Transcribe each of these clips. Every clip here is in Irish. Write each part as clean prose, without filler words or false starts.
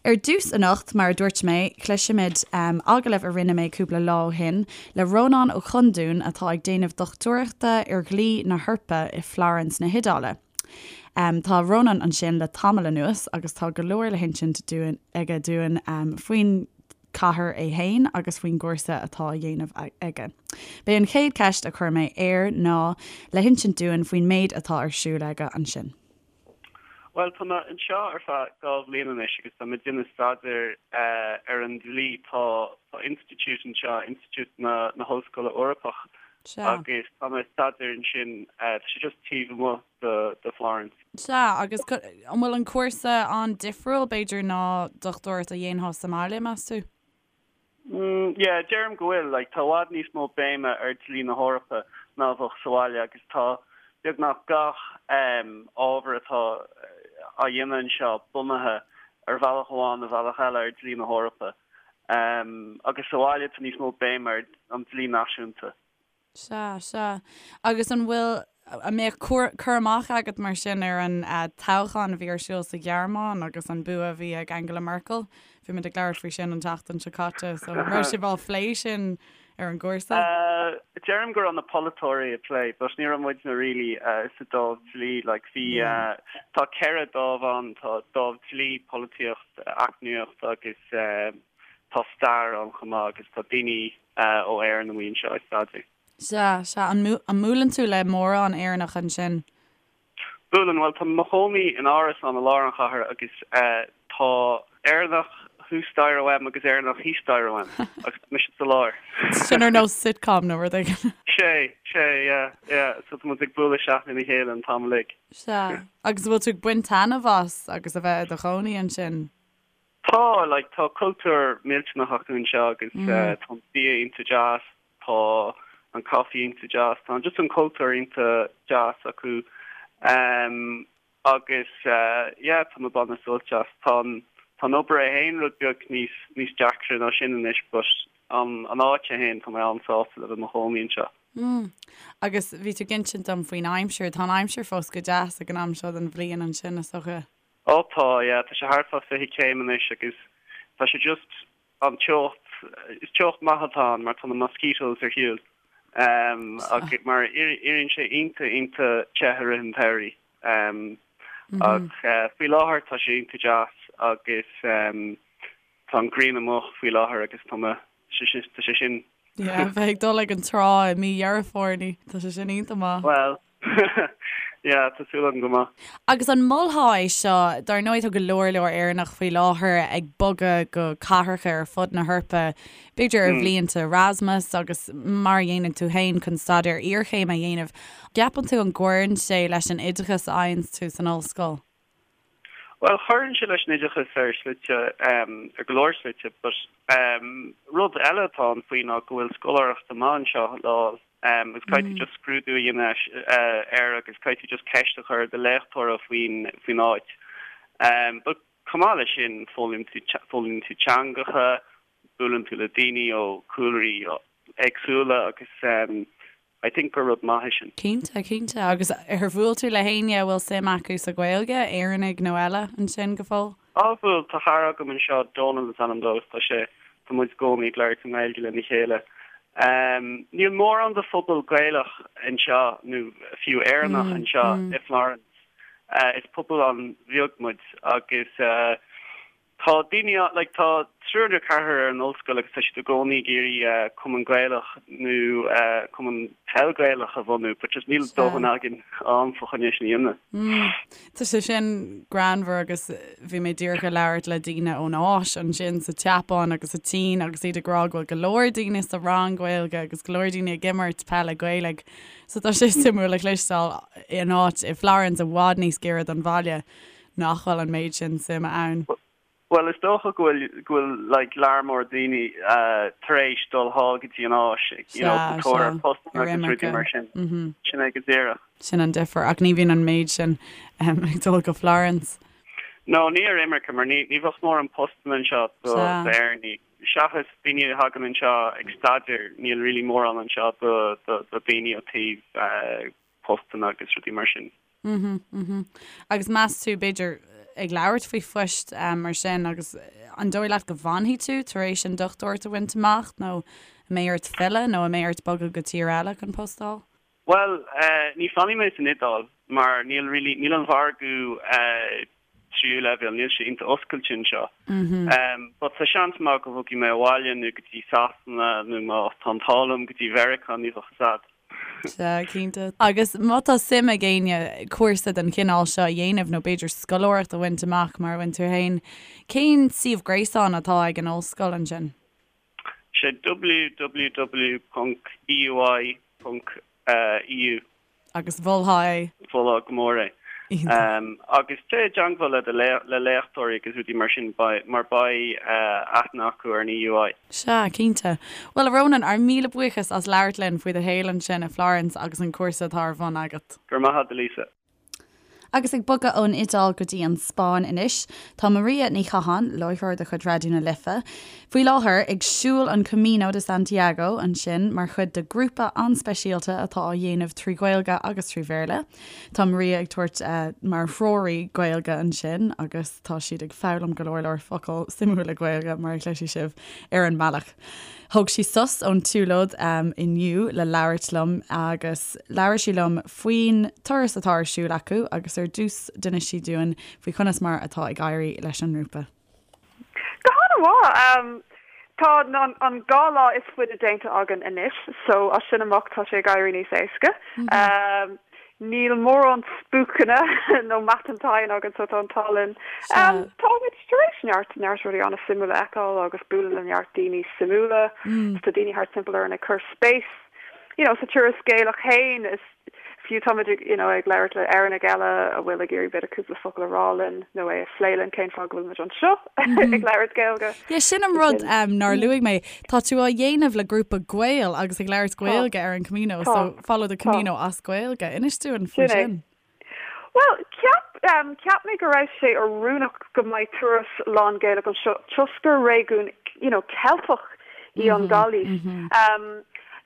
Ar dtús anocht, mar a dúirt mé, cloisfimid agallamh a rinne mé cúpla lá ó shin le Rónán Ó Conduin atá ag déanamh dochtúireachta ar dhlí na hEorpa i Florence na hIodáile. Tá Rónán ansin le tamall anuas agus tá go leor le hinsint dúinn aige dúinn faoin chathair é féin agus faoin gcúrsa atá á dhéanamh aige. B'é an chéad cheist a chuir mé air ná le hinsint dúinn faoin méid atá ar siúl aige ansin. Bhuel, tá mé anseo ar feadh 2 bhliain anois agus tá mé ag déanamh staidéir ar an dlí. Tá institiúid anseo, Institiúid na hOllscoile Eorpach, agus tá mé ag staidéar ansin. Tá sé just taobh amuigh de Florence. Sea, agus an bhfuil an cúrsa an-difriúil, b'fhéidir, ná dochtúireacht a dhéanfá sa mbaile, meas tú? Mm, yeah, deirim go bhfuil. Like, tá i bhfad níos mó béime ar dlí na hEorpa ná a bheadh sa bhaile agus tá beagnach gach em, ábhar atá á dhéanamh anseo bunaithe ar bhealach amháin nó bhealach eile ar dlí na hEorpa. Em, agus sa bhaile tá níos mó béime ar an dlí náisiúnta. Sea, sea. Agus an bhfuil, an mbeadh cur amach agat mar sin ar an toghchán a bhí ar siúl sa Ghearmáin agus an bua a bhí ag Angela Merkel? Bhí muid ag labhairt faoi sin an tseachtain seo caite, so an raibh sibh á phlé sin ar an gcúrsa? Deirim go raibh na polaiteoirí ag plé, but ní raibh muidne really sa dámh dlí, like bhí, tá 4 dámh ann, tá dámh dlí, polaitíocht, eacnamaíocht agus tá stair ann chomh maith agus tá daoine ó Éirinn amuigh anseo ag staidéar. Sea, sea. An mbuaileann tú le mórán Éireannach ansin? Buaileann. Bhuel, tá mé i mo chónaí in árasán i lár an chathair agus tá Éireannach thuas staighre uaim agus Éireannach thíos staighre uaim agus tá mise sa lár. Sin ar nós sitcom nó rud éigin. Sea, sea, yeah, yeah. So tá muid ag bualadh isteach lena chéile an t-am uilig. Sea. Agus an bhfuil tú ag baint taitneamh as agus a bheith i do chónaí ansin? Tá, like, tá cultúr millteanach acu anseo agus tá an bia iontach deas, tá an caife iontach deas, tá just an cultúr iontach deas acu agus yeah, tá mé ag baint sult as. Tá an, tá an obair é féin rud beag níos, níos deacra ná sin anois but an, an áit é féin, tá mé an-sásta le bheith i mo chónaí anseo. Mm. Agus bhí tú ag insint dom faoin aimsir, tá an aimsir fós go deas ag an am seo den bhliain ansin, is dócha. Ó tá, yeah, tá sé thart fá 20 céim anois agus tá sé just an teocht, is teocht maith atá ann mar tá na mosquitoes ar shiúl agus mar éiríonn sé iontach iontach te i rith an tsamhraidh ach faoi láthair tá sé iontach deas agus tá an ghrian amuigh faoi láthair agus tá mé, tá sé sin. Yeah, bheith ag dul ag an trá i mí Dheireadh Fómhair, ní, tá sé sin iontach maith. Bhuel, yeah, tá súil agam go maith. Agus an molfá é seo, dar ndóigh tá go leor leor Éireannach faoi láthair ag bogadh go cathracha ar fud na hEorpa, b'fhéidir ar bhlianta Erasmus agus mar a dhéanann tú féin chun staidéar iarchéime a dhéanamh. Ceapann tú an gcuireann sé leis an oideachas a fhaigheann tú san ollscoil? Bhuel, cuireann sé leis an oideachas ar shlite, ar go leor slite, but rud eile atá ann faoi ná go bhfuil scoláireacht amach anseo le fháil agus caithfidh tú just scrúdú a dhéanamh air agus caithfidh tú just ceist a chur ar do léachtóra faoin faoin áit. But chomh maith leis sin, foghlaimíonn tú foghlaimíonn tú teangacha, buaileann tú le daoine ó chúlraí éagsúla agus I think gur rud maith é sin. Cinnte, cinnte. Agus ar bhuail tú le héinne a bhfuil suim acu sa Ghaeilge, Éireannaigh nó eile, ansin go fóill? Á bhuail, tá cara agam anseo, Dónal is ainm dó, agus tá sé, tá muid i gcónaí ag labhairt i nGaeilge lena chéile. Níl mórán de phobal Gaelach anseo, nó fiú Éireannach anseo i Florence. Is pobal an-bheag muid agus Tá daoine, like, tá triúr nó ceathrar ar an ollscoil agus tá siad i gcónaí ag iarraidh cumann Gaelach nó cumann peil Gaelach a bhunú but just níl dóthain againn am fá choinne sin a dhéanamh. Mm. Tá sé sin greannmhar agus bhí mé díreach ag labhairt le daoine ón Áis ansin sa tSeapáin agus sa tSín agus iad ag rá go bhfuil go leor daoine sa rang Gaeilge agus go leor daoine ag imirt peile Gaelaigh. So tá sé suimiúil a chloisteáil in áit i Florence i bhfad níos giorra don bhaile. nach bhfuil an méid sin suime ann. Bhuel, is dócha go bhfuil, go bhfuil like lear mór daoine tar éis dul thall go dtí an Áis, you know, sa tóir ar postanna agus rudaí mar sin. Sin é go díreach. Sin an difear, ach ní bhíonn an méid sin ag dul go Florence. No, ní ar imirce, mar ní, ní bheadh mórán postanna anseo do d'Éireannaigh. Seachas daoine a thagann anseo ag staidéar, níl really mórán anseo do, do, do daoine ó taobh postanna agus rudaí mar sin. Mhm, mhm. Agus meas tú, b'fhéidir, ag labhairt faoi phoist mar sin agus an dóigh leat go bhfanfaidh tú tar éis an dochtúireacht a bhaint amach nó an mbeidh ort filleadh nó an mbeidh ort bogadh go tír eile chun post a fháil? Bhuel, ní fanfaidh mé san Iodáil mar níl really, níl an mhargadh tríú leibhéal, níl sé iontach oscailte anseo. But tá seans maith go bhogfaidh mé abhaile nó go dtí Sasana nó má tá an t-ádh liom go dtí Mheiriceá, ní bheadh fhios a'd. Sea, cinnte. Agus má tá suim ag éinne cúrsa den chineál seo a dhéanamh nó b'fhéidir scoláireacht a bhaint amach mar a bhain tú féin, cén suíomh gréasáin atá ag an ollscoil ansin? Sé www.eui.eu. Agus mholfá é? Mholfá go mór é. Agus téigh i dteangmháil le do le léachtóirí agus rudaí mar sin mar beidh aithne acu ar an EUI. Sea, cinnte. Bhuel, a Rónáin, ár míle buíochas as labhairt linn faoi do shaol ansin i Florence agus an cúrsa atá ar bun agat. Go raibh maith agat, a Lisa. Agus ag bogadh ón Iodáil go dtí an Spáinn anois, tá Maria Ní Chatháin, láithreoir de chuid Raidió na Life, faoi láthair ag siúl an Camino de Santiago ansin mar chuid de ghrúpa an-speisialta atá á dhéanamh trí Ghaeilge agus trí Bhéarla. Tá Maria ag tabhairt mar threoraí Gaeilge ansin agus tá siad ag foghlaim go leor leor focal suimiúla Gaeilge, mar a chloisfidh sibh ar an mbealach. Thóg sí sos ón tsiúlóid inniu le labhairt liom agus labhair sí liom faoin turas atá ar siúl acu agus ar dtús d'inis sí dúinn faoi conas mar atá ag éirí leis an ngrúpa. Go han-mhaith! Tá an 2 lá is faide déanta againn anois so as sin amach tá sé ag éirí níos éasca. Níl mórán spúcanna nó matán teine againn so tá an t-ádh linn. Táimid tar éis neart, neart rudaí an-suimiúla a fheiceáil agus bualadh le neart daoine suimiúla. Tá daoine thart timpeall orainn ag cur spéis you know sa turas Gaelach féin is fiú táimid ag you know ag labhairt le Éireannaigh eile a bhfuil ag iarraidh b'fhéidir cúpla focal a rá linn nó é a phlé linn cén fáth go bhfuilimid anseo ag labhairt Gaeilge. Yeah, sin an rud nár luaigh mé. Tá tú á dhéanamh le grúpa Gael agus ag labhairt Gaeilge ar an Camino, so follow the Camino as Gaeilge. Inis dúinn faoi sin. Bhuel, cheap, cheap mé go raibh sé oiriúnach go mbeidh turas lán-Ghaelach anseo toisc gur réigiún, you know, Ceilteach í an Ghailís.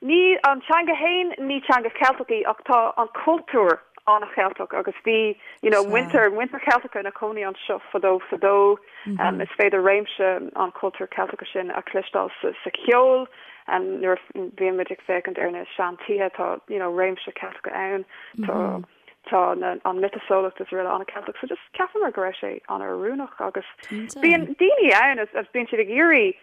Ní, an teanga fhéin, ní teanga Cheilteach í ach tá an cultúr an-Cheilteach agus bhí, you know, muintir, muintir Cheilteacha ina cónaí anseo fadó fadó. Is féidir réimse an chultúir Cheilteacha sin a chloisteáil sa cheol. Nuair a bhíonn muid ag féachaint ar na sean-tithe tá you know réimse Ceilteacha ann. Tá tá na an miotaseolaíocht is araile an-Cheilteach. So just cheapamar go raibh sé an-oiriúnach agus bíonn daoine ann is bíonn siad ag iarraidh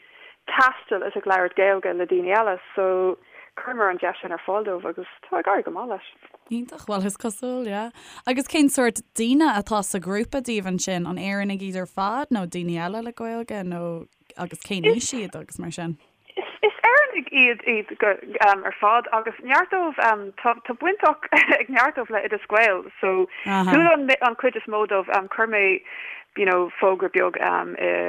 taisteal is ag labhairt Gaeilge le daoine eile so chuireamar an deis sin ar fáil dóibh agus tá ag éirí go maith leis. Iontach, bhuel is cosúil, yeah. Agus cén sórt daoine atá sa ghrúpa daoibh ansin? An Éireannaigh iad ar fad nó daoine eile le Gaeilge nó agus cén aois iad agus mar sin? Is Éireannaigh iad iad go ar fad agus neart dóibh tá tá baint ag neart dóibh le Oideas Gael so chuala an an chuid is mó dóibh chuir mé you know fógra beag i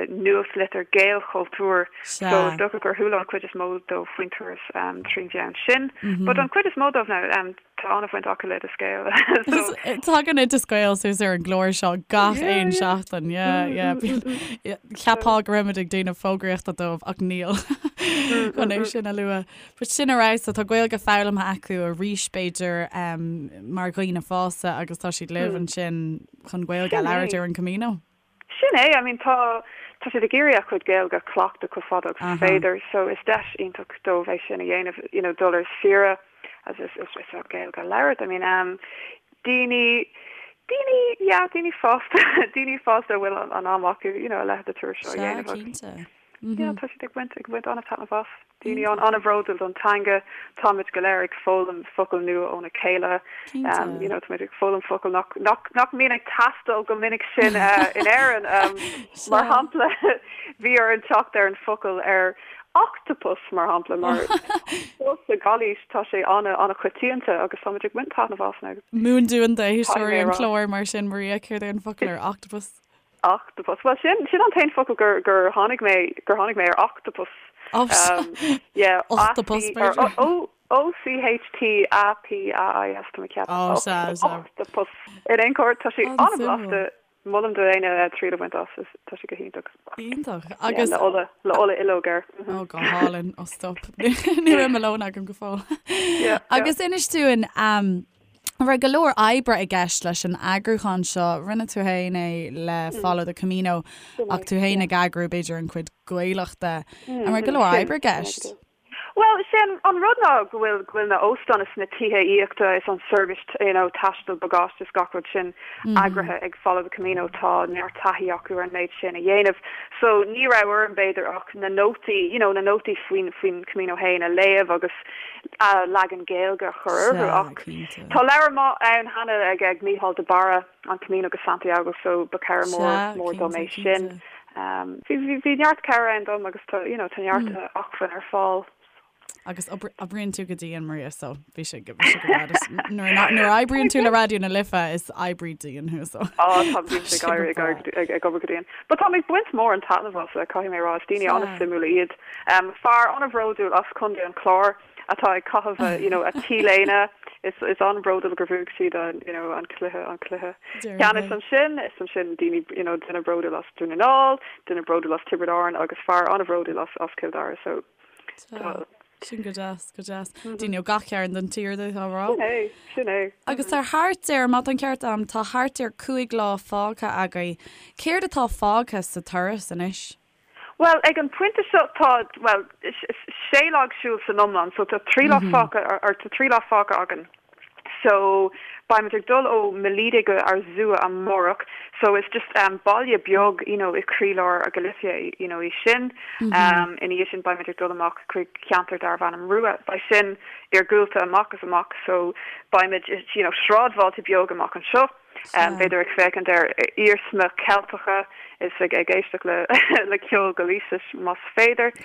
nuachtlitir Gaelchultúr so is dócha gur chuala an chuid is mó dóibh faoin turas trín mheán sin but an chuid is mó dóibh now tá an-bhaint acu le Oideas Gael so Tagann Oideas Gael suas ar an gclár seo gach aon seachtain yeah yeah Cheapfá go raibh muid ag déanamh fógraíochta dóibh ach níl chun é sin a lua. But sin ar fheabhas so tá Gaeilge foghlamtha acu arís b'fhéidir mar dhaoine fásta agus tá siad libh ansin chun Gaeilge a labhairt ar an Camino. Sin é, I mean tá tá siad ag iarraidh a chuid Gaeilge a chleachtadh chomh fada agus is féidir so is deis iontach dóibh é sin a dhéanamh, you know dul ar saoire agus is is is Gaeilge a labhairt. I mean um daoine daoine yeah daoine fásta daoine fásta a bhfuil an am acu you know a leithéid de turas seo a dhéanamh agus Sea, cinnte. Yeah, tá siad ag baint ag baint an-taitneamh as. Daoine an an-bhródúil don teanga. Táimid go léir ag foghlaim focail nua óna chéile. Cinnte. You know, táimid ag foghlaim focail nach nach nach mbíonn ag teastáil go minic sin in Éirinn. Mar shampla, bhí orainn teacht ar an focal ar octopus mar shampla mar sa Ghailís tá sé an an-choitianta agus táimid ag baint taitneamh as now. Múin dúinn d'éisteoirí an chláir mar sin, Maria, céard é an focal ar octopus? Octopus. Bhuel, sin, sin an t-aon focal gur, gur tháinig mé, gur tháinig mé ar octopus. Oh, sea. Yeah. Octopus, b'fhéidir. O, O C H T A P A I S, tá mé ag ceapadh. Oh, sea, sea. Octopus. In aon chor, tá sé an-bhlasta. Molaim do éinne triail a bhaint as, is, tá sé go hiontach. Iontach. Agus. Yeah, le ola, le ola ológ air. Oh, go hálainn. Oh, stop. Ní raibh mo lón agam go fóill. Yeah, yeah. Agus inis dúinn, um, An raibh go leor oibre i gceist leis an eagrúchán seo? Rinne tú féin é le Follow the Camino ach tú féin ag eagrú b'fhéidir an chuid Gaelach de. An raibh go leor oibre i gceist? Bhuel, is é an rud ná go bhfuil go bhfuil na óstáin is na tithe aíochta is an seirbhís you know taistil bagáiste is gach rud sin eagraithe ag Follow the Camino, tá neart taithí acu ar an méid sin a dhéanamh. So ní raibh orm b'fhéidir ach na nótaí you know na nótaí faoin faoin Camino féin a léamh agus a leagan Gaeilge a chur orthu ach tá leabhar maith ann cheana ag ag Mícheál de Barra, An Camino go Santiago so ba cabhair mór mór dom é sin. Bhí bhí neart cabhair ann dom agus tá you know tá neart acmhainn ar fáil. Agus oibríonn tú go dian Maria so bhí sé go bhí sé go breá. Nuair nuair a oibríonn tú le Raidió na Life is oibrí dian thú so. Á tá bíonn sé ag éirí ag ag ag obair go dian. But tá mé ag baint mórán taitneamh as caithfidh mé a rá is daoine an-suimiúla iad. Fear an-bhródúil as Contae an Chláir atá ag caitheamh a you know a T-léine is is an-bhródúil gur bhuaigh siad an you know an cluiche an cluiche ceannais ansin is ansin daoine you know duine bródúil as Dún na nGall, duine bródúil as Tiobraid Árann agus fear an-bhródúil as as Cill Dara so tá Sin go deas, go deas. Daoine ó gach cearn den tír d'fhéadfá a rá. Sin é, sin é. Agus tá thart ar, má tá an ceart agam, tá thart ar 5 lá fágtha agaibh. Céard atá fágtha sa turas anois? Bhuel, ag an pointe seo tá, bhuel, sé lá ag siúl san iomlán, so tá trí lá fágtha, or tá trí lá fágtha againn. So, beimid ag dul ó Melide go Arzúa amárach, so is just baile beag, you know, i croílár Galicia, you know, í sin. Ina dhiaidh sin beimid ag dul amach chuig ceantar darbh ainm Rúa. Beidh sin iargúlta amach is amach, so beimid, you know, sráidbhailte beag amach anseo. B'fhéidir ag féachaint ar iarsmaí Ceilteacha is ag éisteacht le ceol Gailísis más féidir.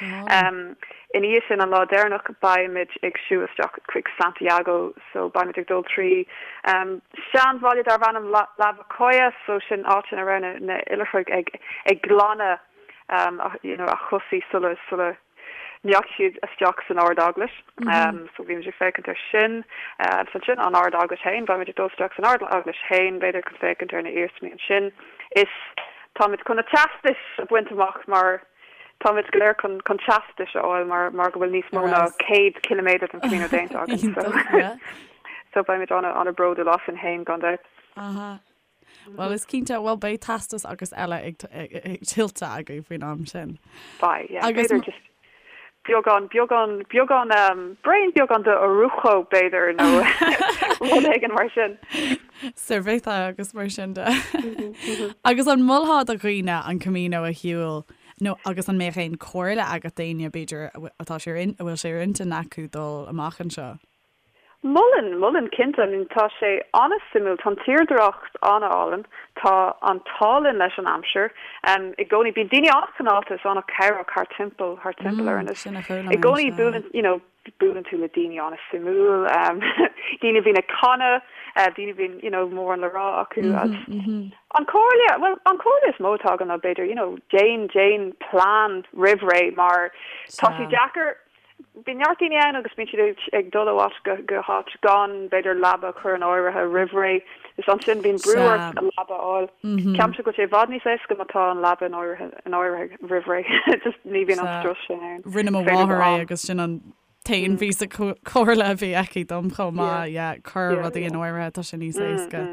Ina dhiaidh sin, an lá deireanach, beimid ag siúl isteach chuig Santiago so beimid ag dul trí seanbhaile darbh ainm Lavacolla so sin áit ina raibh na hoilithrigh ag glanadh you know a chosaí sula sula ndeachaigh siad isteach san Ard-Eaglais. So bhí muid ag féachaint ar sin. Agus ansin an Ard-Eaglais féin, beimid ag dul isteach san Ard-Eaglais féin, b'fhéidir chun féachaint ar na iarsmaí ansin. Is táimid chun na teastais a bhaint amach mar táimid go léir chun chun teastais a fháil mar mar go bhfuil níos mó ná 100 ciliméadar den Camino déanta againn. So so beimid an-an-bhródúil asainn féin gan dabht. Aha. Bhuel, is cinnte, bhuel, beidh teastas agus eile ag tuillte agaibh faoin am sin. Beidh, yeah. Agus b'fhéidir just beagán, beagán, beagán, braon beagán de orujo, b'fhéidir, nó rud éigin mar sin. Cerveza agus mar sin de. Agus an molfá do dhaoine an Camino a shiúl nó agus an mbeadh aon chomhairle agat d'éinne, b'fhéidir, atá sé ar, a bhfuil sé ar intinn acu dul amach anseo? Mholfainn, mholfainn cinnte. I mean tá sé an-suimiúil, tá an tírdhreach an-álainn, tá an t-ádh linn leis an aimsir. I gcónaí bíonn daoine an-chineálta is an-chabhrach thart timpeall, thart timpeall orainn. Is Sin a chuala i mé, gcónaí sea. buaileann, you know, buaileann tú le daoine an-suimiúil, daoine a bhíonn ag canadh, daoine a bhíonn, you know, mórán le rá acu. Agus an chomhairle, bhuel, an chomhairle is mó atá agam ná b'fhéidir, you know, déan, déan plean roimh ré mar tá sé Sea. deacair, Bíonn neart daoine ann agus bíonn siad ag dul ó áit go háit gan, b'fhéidir, leaba a chur in áirithe roimh ré. Is ansin bíonn brú ort leaba a fháil. Ceapaimse go bhfuil sé i bhfad níos éasca má tá an leaba in áirithe in áirithe roimh ré. Just ní bhíonn an strus sin ann. Rinne mo mháthair é agus sin an t-aon phíosa comhairle a bhí aici dom chomh maith. Yeah, cuir rudaí in áirithe, tá sé níos éasca.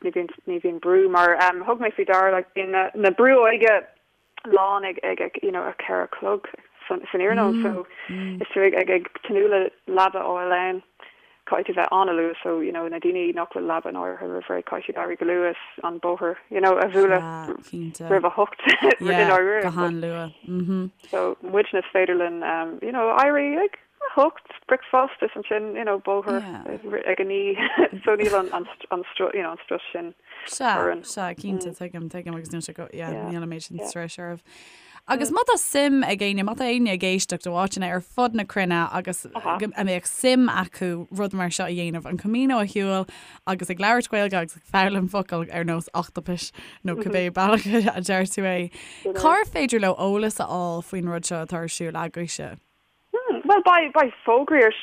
Ní bhíonn ní bhíonn brú mar thug mé faoi deara like bíonn na brú óige lán ag ag you know a 4 a chlog san san iarnóin so is tú ag ag ag tnúth le leaba a fháil ann caithfidh tú bheith an-luath so you know na daoine nach bhfuil leaba in áirithe roimh ré caithfidh siad éirí go luath is an bóthar you know a bhualadh roimh a hocht i ndáiríre go han-luath so muidne is féidir linn um, you know éirí ag a hocht bricfeasta is ansin you know bóthar ag a naoi so níl an an an you know an strus sin Sea, orainn. sea, cinnte, tuigim, tuigim agus níl sé go, yeah, níl an méid sin struis oraibh. Agus má tá suim ag éinne, má tá éinne ag éisteacht ó áiteanna ar fud na cruinne agus go a mbeadh suim acu rud mar seo a dhéanamh, an Camino a shiúl agus ag labhairt Gaeilge agus ag foghlaim focal ar nós ochtapais nó cibé bealach a deir tú é, cár féidir leo eolas a fháil faoin rud seo atá ar siúl agaibhse? Bhuel, beidh, beidh fógraí ar,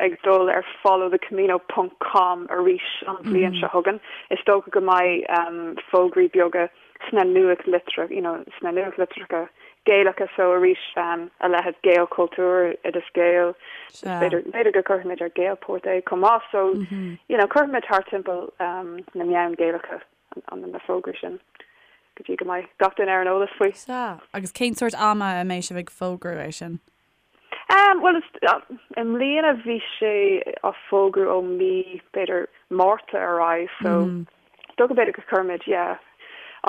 ag dul ar followthecamino ponc com arís an bhliain seo chugainn. Is dócha go mbeidh fógraí beaga sna nuachtlitreacha, you know, sna nuachtlitreacha. Gaelacha so arís a leithéid Gaelchultúr, Oideas Gael, b'fhéidir b'fhéidir go gcuirfimid ar Gaelport é chomh maith so you know cuirfimid thart timpeall na meáin Gaelacha an na fógraí sin go dtí go mbeidh gach duine ar an eolas faoi. Sea, agus cén sórt ama a mbeidh sibh ag fógrú é sin? Bhuel, i mbliana bhí sé á fógrú ó mí, b'fhéidir, Márta ar aghaidh, so is dócha b'fhéidir go gcuirfimid, yeah,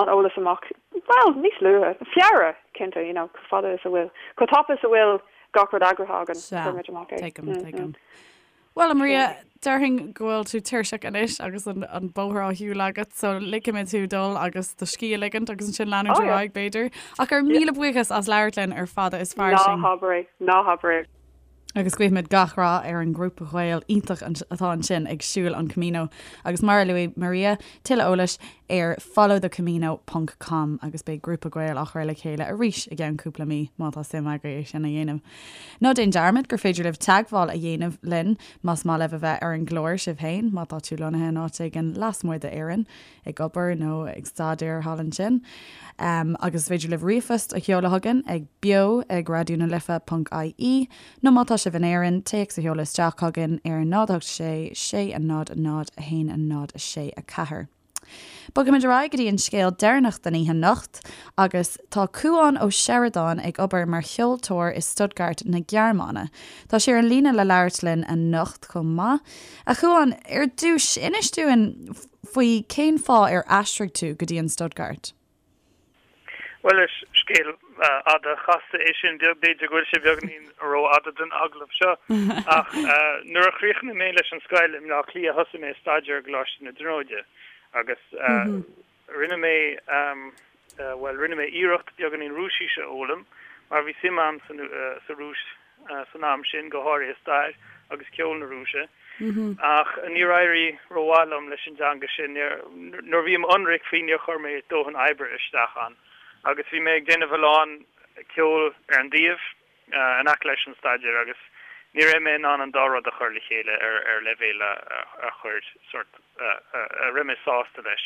an eolas amach, bhuel, níos luaithe, Feabhra, cinnte, you know, chomh fada is a bhfuil, chomh tapa is a bhfuil gach rud eagraithe againn, cuirfimid amach é. Tuigim, tuigim. Bhuel, a Maria, déarfainn go bhfuil tú tuirseach anois agus an bóthar á shiúl agat, so ligfimid thú dul agus do scíth a ligint agus ansin leanúint ar aghaidh, b'fhéidir. Ach ár míle buíochas as labhairt linn ar Fada is Fairsing. Ná habair é, ná habair é. Agus guímid gach rath ar an ngrúpa Gael iontach atá ansin ag siúl an Camino. Agus mar a luaigh Maria, tuilleadh eolais ar followthecamino ponc com agus beidh grúpa Gael á chur le chéile arís i gceann cúpla mí má tá suim agaibh é sin a dhéanamh. Ná déan dearmad gur féidir libh teagmháil a dhéanamh linn más maith libh a bheith ar an gclár sibh féin, má tá tú lonnaithe in áit éigin lasmuigh d'Éirinn, ag obair nó ag staidéar thall ansin. Agus is féidir libh ríomhphost a sheoladh chugainn ag beo ag raidió na life ponc ie nó má tá sibh in Éirinn, téacs a sheoladh isteach chugainn ar 0 8 6 6 0 0 1 0 6 4. Bogfaimid ar aghaidh go dtí an scéal deireanach den oíche anocht agus tá Cúán Ó Seireadáin ag obair mar cheoltóir i Stuttgart na Gearmáine. Tá sé ar an líne le labhairt linn anocht chomh maith. A Chúáin, ar dtús, inis dúinn faoi cén fáth ar aistrigh tú go dtí an Stuttgart? Bhuel, is scéal fhada chasta é sin. B'fhéidir go bhfuil sé beagáinín rófhada don agallamh seo. Ach nuair a chríochnaigh mé leis an scoil i mBleá Cliath thosaigh mé ag staidéar i gColáiste na Tríonóide agus rinne mé, bhuel, rinne mé iarracht beagáinín Rúisise a fhoghlaim mar bhí suim agam sa Rúis san am sin, go háirithe stair agus ceol na Rúise. Ach níor éirigh rómhaith liom leis an dteanga sin. Nuair a bhí mé ionraic faoi, níor chuir mé dóthain oibre isteach ann. Agus bhí mé ag déanamh a lán ceoil ar an dtaobh, in aice leis an staidéar, agus ní raibh mé in ann an dá rud a chur le chéile ar leibhéal a chuir sort, a raibh mé sásta leis.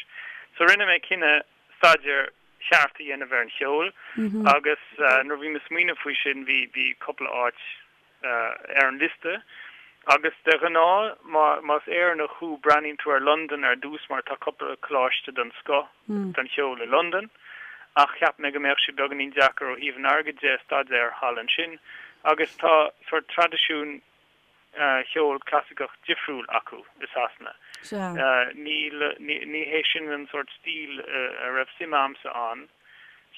So rinne mé cinneadh staidéar ceart a dhéanamh ar an cheol agus nuair a bhí mé ag smaoineamh faoi sin bhí bhí cúpla áit ar an liosta agus de ghnáth má más Éireannach thú breathnaíonn tú ar Londain ar dtús mar tá cúpla coláiste den scoth don cheol i Londain ach cheap mé go mbeadh sé beagáinín deacair ó thaobh an airgid de staidéar thall ansin agus tá sort traidisiún cheol clasaiceach difriúil acu i Sasana. Níl, ní hé sin an sórt stíl a raibh suim a'msa ann.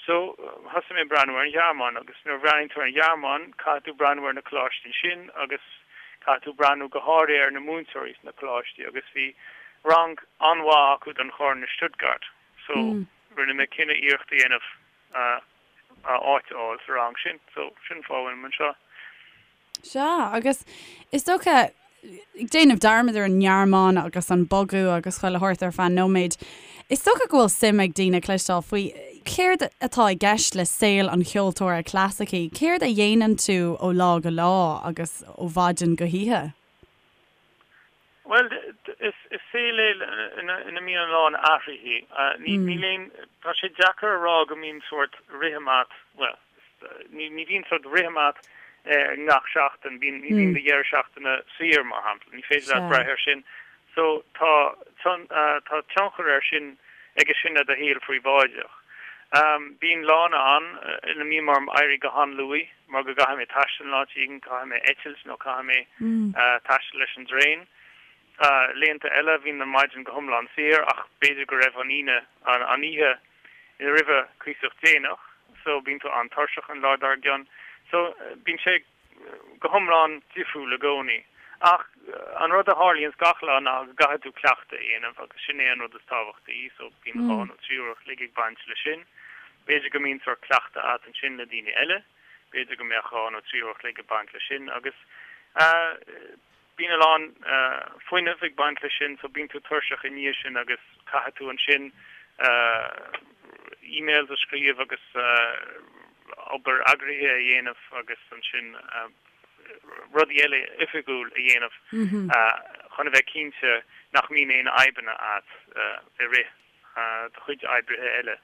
So, thosaigh mé ag breathnú ar an Ghearmáin agus nuair a bhreathnaíonn tú ar an Ghearmáin, caithfidh tú breathnú ar na coláistí ansin agus caithfidh tú breathnú go háirithe ar na múinteoirí sna coláistí agus bhí rang an-mhaith acu don chorn i Stuttgart. So, rinne mé cinneadh iarracht a dhéanamh áit a fháil sa rang sin. So, sin an fáth a bhfuilim anseo. Sea, agus is dócha, ag déanamh dearmad ar an nGearmáin agus an bogadh agus chuile shórt ar feadh nóiméid, is dócha go bhfuil suim ag daoine cloisteáil faoi céard atá i gceist le saol an cheoltóra clasaicigh, céard a dhéanann tú ó lá go lá agus ó mhaidin go hoíche? Bhuel, is saol é ina mbíonn a lán athruithe. Níl aon, tá sé deacair a rá go mbíonn sórt rithim a't, bhuel, ní bhíonn sórt rithim a't ngach seachtain, bíonn, ní bhíonn do dheireadh seachtaine saor, mar shampla, ní féidir leat brath air sin. So tá, tá tionchar air sin, aige sin ar do shaol phríobháideach. Bíonn lána ann ina mbíonn orm éirí go han-luath. mar go gcaithfidh mé taisteal in áit éigin, caithfidh mé eitilt nó caithfidh mé taisteal leis an dtraein. Laethanta eile bhíonn an maidin go hiomlán saor ach b'fhéidir go raibh an Aoine, an oíche roimhe cuíosach déanach so bíonn tú an-tuirseach an lá dár gcionn. So bíonn sé go hiomlán difriúil i gcónaí. Ach an rud a tharlaíonns gach lá ná go gcaithfidh tú cleachtadh a dhéanamh agus sin é an rud is tábhachtaí so bíonn 2 nó 3 uair a chloig ag baint leis sin. B'fhéidir go mbíonn sórt cleachtadh a't ansin le daoine eile, b'fhéidir go mbeadh 2 nó 3 uair a chloig ag baint leis sin agus bíonn a lán fuinnimh ag baint leis sin so bíonn tú tuirseach i ndiaidh sin agus caithfidh tú ansin emails a scríobh agus obair eagraithe a dhéanamh agus ansin rudaí eile oifigiúil a dhéanamh chun a bheith cinnte nach mbíonn aon fhadhbanna a't i rith do chuid oibrithe eile.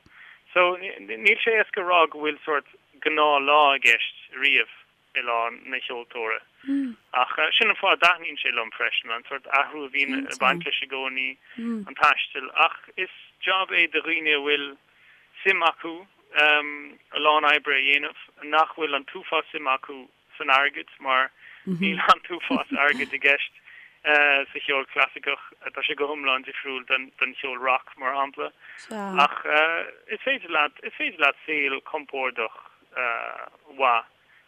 So, níl sé éasca a rá go bhfuil sórt. gnáthlá i gceist riamh i lá an cheoltóra. Ach sin an fáth a dtaitníonn sé liom freisin, an sórt athrú a bhíonn ag baint leis i gcónaí, an taisteal. Ach is jab é do dhaoine a bhfuil suim acu a lán oibre a dhéanamh, nach bhfuil an t-uafás suim acu san airgead mar níl an t-uafás airgid i gceist sa cheol clasaiceach, tá sé go hiomlán difriúil don cheol rock, mar shampla. Ach is féidir leat, is féidir leat saol compordach mhaith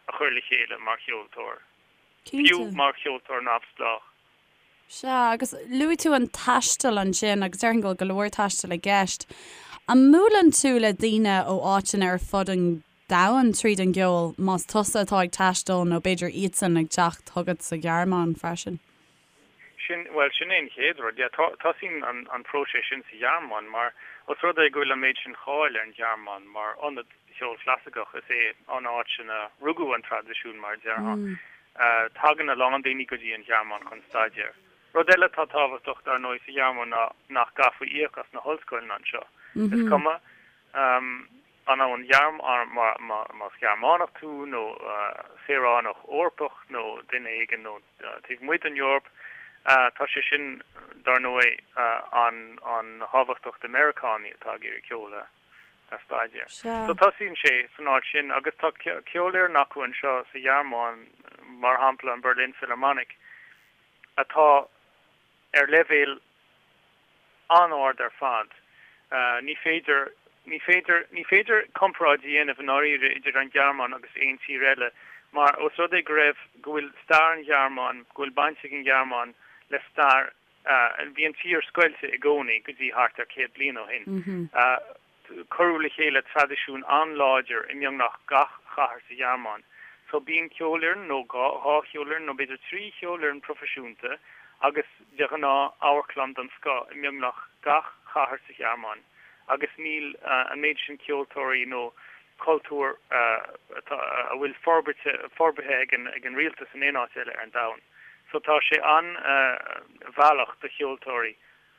a chur le chéile mar cheoltóir, fiú mar cheoltóir neamhspleách. Sea, agus luaigh tú an taisteal ansin, agus déarfainn go bhfuil go leor taistil i gceist. An mbuaileann tú le daoine ó áiteanna ar fud an domhain tríd an gceol, más tusa atá ag taisteal nó b'fhéidir iadsan ag teacht chugat sa Ghearmáin freisin? Sin, bhuel, sin é an chéad rud, yeah. Tosaíonn an próiseas sin sa Ghearmáin mar, os rud é go bhfuil an méid sin cáil ar an Ghearmáin mar ionad cheol clasaiceach, is é an áit ina rugadh an traidisiún, mar a déarfá. Tagann a lán daoine go dtí an Ghearmáin chun staidéir. Rud eile atá tábhachtach, dar ndóigh, sa Ghearmáin ná nach gcaithfí íoc as na hollscoileanna anseo. Is cuma an ón más Gearmánach tú nó saoránach Eorpach nó duine éigin ó taobh amuigh den Eoraip, tá sé sin, dar ndóigh, an-thábhachtach do Meiriceánaigh atá ag iarraidh ceol a a staidéar. So tosaíonn sé san áit sin agus tá ceolfhoireann acu anseo sa Ghearmáin, mar shampla an Berlin Philharmonic, atá ar leibhéal an-ard ar fad. Ní féidir, ní féidir, ní féidir comparáid a dhéanamh i ndáiríre idir an Ghearmáin agus aon tír eile mar os rud é go raibh, go bhfuil stair an Ghearmáin, go bhfuil baint ag an Ghearmáin le stair Bhí an tír scoilte i gcónaí go dtí thart ar 100 bliain ó shin. Cuireadh le chéile traidisiún an-láidir i mbeagnach gach chathair sa Ghearmáin. So bíonn ceolfhoireann nó dhá cheolfhoireann nó b'fhéidir trí cheolfhoireann proifisiúnta agus de ghnáth amharclann den scoth i mbeagnach gach chathair sa Ghearmáin agus níl an méid sin ceoltóirí nó cultúr atá a bhfuil forbartha ag an rialtas in aon áit eile ar an domhan. So tá sé an-mhealltach do cheoltóirí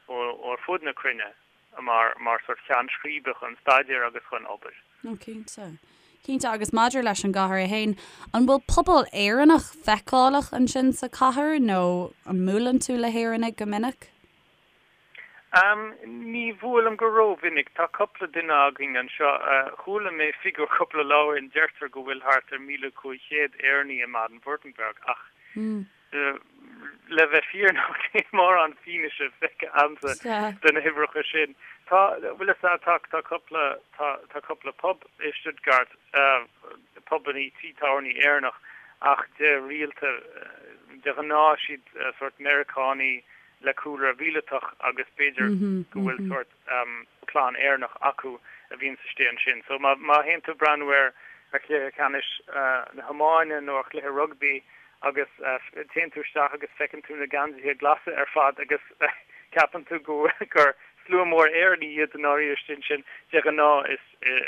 ó ar fud na cruinne mar mar sort cheann scríbe chun staidéir agus chun obair. Ó cinnte. Cinnte agus maidir leis an gcathair é féin, an bhfuil pobal Éireannach feiceálach ansin sa chathair nó an mbuaileann tú le hÉireannaigh go minic? Ní bhuailim go rómhinic. Tá cúpla duine againn anseo. Chuala mé figiúr cúpla lá ó shin, deirtear go bhfuil thart ar 1,500 Éireannaí i mBaden-Württemberg ach le bheith fírinneach níl mórán fianaise feicthe agamsa de na huimhreacha sin. Tá, bhfuil fhios a'd, tá, tá cúpla, tá, tá cúpla pub i Stuttgart, pubannaí, tí tábhairní Éireannach ach de rialta, de ghnáth siad sórt Meiriceánaí, le cúlra mhíleatach agus b'fhéidir go bhfuil sórt clann Éireannach acu a bhíonns istigh ansin. So má má théann tú ag breathnú ar ar chluiche ceannais na hiomána nó ar chluiche rugbaí agus téann tú isteach agus feiceann tú na geansaithe glasa ar fad agus ceapann tú go gur slua mór Éireannaigh iad i ndáiríre istigh ansin, de ghnáth is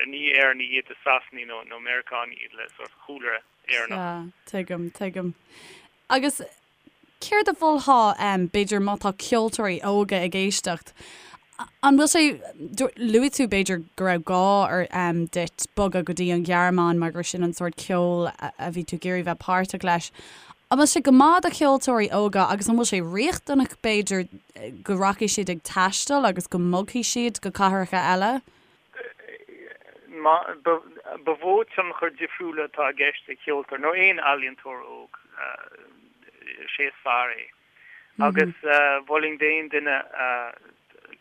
ní Éireannaigh iad, is Sasanaigh nó nó Meiriceánaigh iad le sórt chúlra Éireannach. Sea, tuigim, tuigim. Agus Céard a mholfá, b'fhéidir, má tá ceoltóirí óga ag éisteacht? An bhfuil sé, luaigh tú b'fhéidir go raibh gá ar duit bogadh go dtí an Ghearmáin mar gur sin an sórt ceoil a bhí tú ag iarraidh bheith páirteach leis. An bhfuil sé go maith do cheoltóirí óga agus an bhfuil sé riachtanach b'fhéidir go rachaidh siad ag taisteal agus go mbogfaidh siad go cathracha eile? Ba mhó tionchar difriúla atá i gceist ag ceoltóir nó aon ealaíontóir óg, is é is fearr é. Agus mholfainn d'aon duine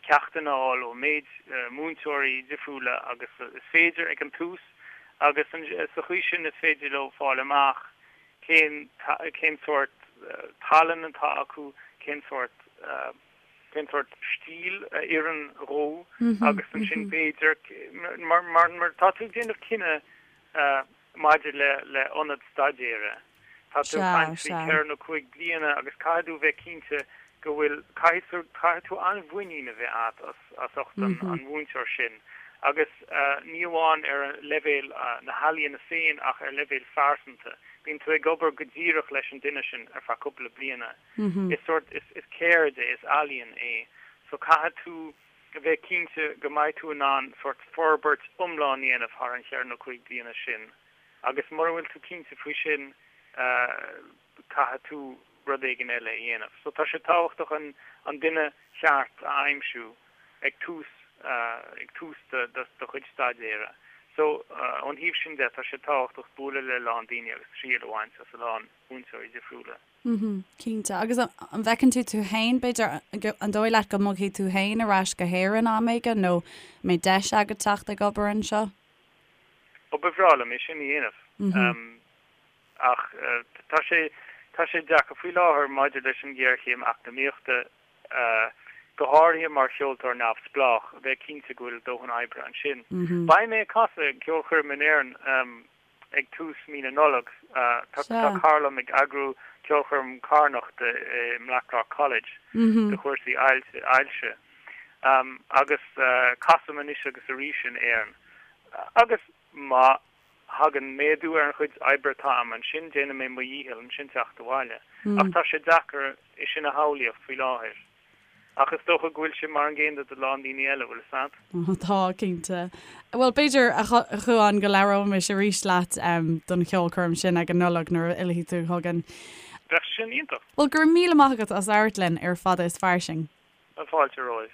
ceachtanna a fháil ó méid múinteoirí difriúla agus is féidir ag an tús agus sa chaoi sin is féidir leo fáil amach cén cén sórt tallann atá acu, cén sórt. cén sórt stíl a oireann dhó agus ansin b'fhéidir, mar mar tá tú ag déanamh cinneadh maidir le le ionad staidéire, tá tú ag caint faoi cheithre nó cúig bliana agus caithfidh tú bheith cinnte go bhfuil, caithfidh caithfidh tú an-mhuinín a bheith agat as as ucht an an mhúinteoir sin agus ní amháin ar leibhéal na healaíona féin ach ar leibhéal phearsanta. Bíonn tú ag obair go díreach leis an duine sin ar feadh cúpla bliana. Is sórt, is ceird é, is ealaíon é. So caithfidh tú a bheith cinnte go mbeidh tú in ann sórt forbairt iomlán a dhéanamh thar an cheithre nó cúig bliana sin. Agus mura bhfuil tú cinnte faoi sin, caithfidh tú rud éigin eile a dhéanamh. So tá sé tábhachtach an an duine cheart a aimsiú ag tús ag tús do do chuid staidéara. So ón thaobh sin de tá sé tábhachtach bualadh le a lán daoine agus triail a bhaint as a lán múinteoirí difriúla. Mhm, cinnte. Agus an bhfeiceann tú tú féin, b'fhéidir, an dóigh leat go mbogfaidh tú féin ar ais go hÉirinn am éigin nó an mbeidh deis agat teacht ag obair anseo? Ó, ba bhreá liom é sin a dhéanamh. Ach tá sé, tá sé deacair faoi láthair maidir leis an ghéarchéim eacnamaíochta, go háirithe mar cheoltóir neamhspleách, a bheith cinnte go bhfuil dóthain oibre ansin. Beidh mé ag casadh ag ceolchoirm in Éirinn ag tús mí na Nollag. Tá cara liom ag eagrú ceolchoirm carthanachta i mBlackrock College do chúrsaí ailse. Agus casaim anois agus arís in Éirinn. Agus má thagann méadú ar an chuid oibre atá a'm ansin, déanfaidh mé mo dhícheall ansin teacht abhaile. Ach tá sé deacair é sin a shamhlaíocht faoi láthair. Ach is dócha go bhfuil sé mar an gcéanna do lán daoine eile, bhfuil 'fhios a'd? Tá, cinnte. Bhuel, b'fhéidir, a Chuáin, go labhróimis arís leat don cheolchoirm sin ag an Nollaig nuair a fhillfidh tú chugainn. Bheadh sin iontach. Bhuel, go raibh míle maith agat as labhairt linn ar Fada is Fairsing. Fáilte romhaibh.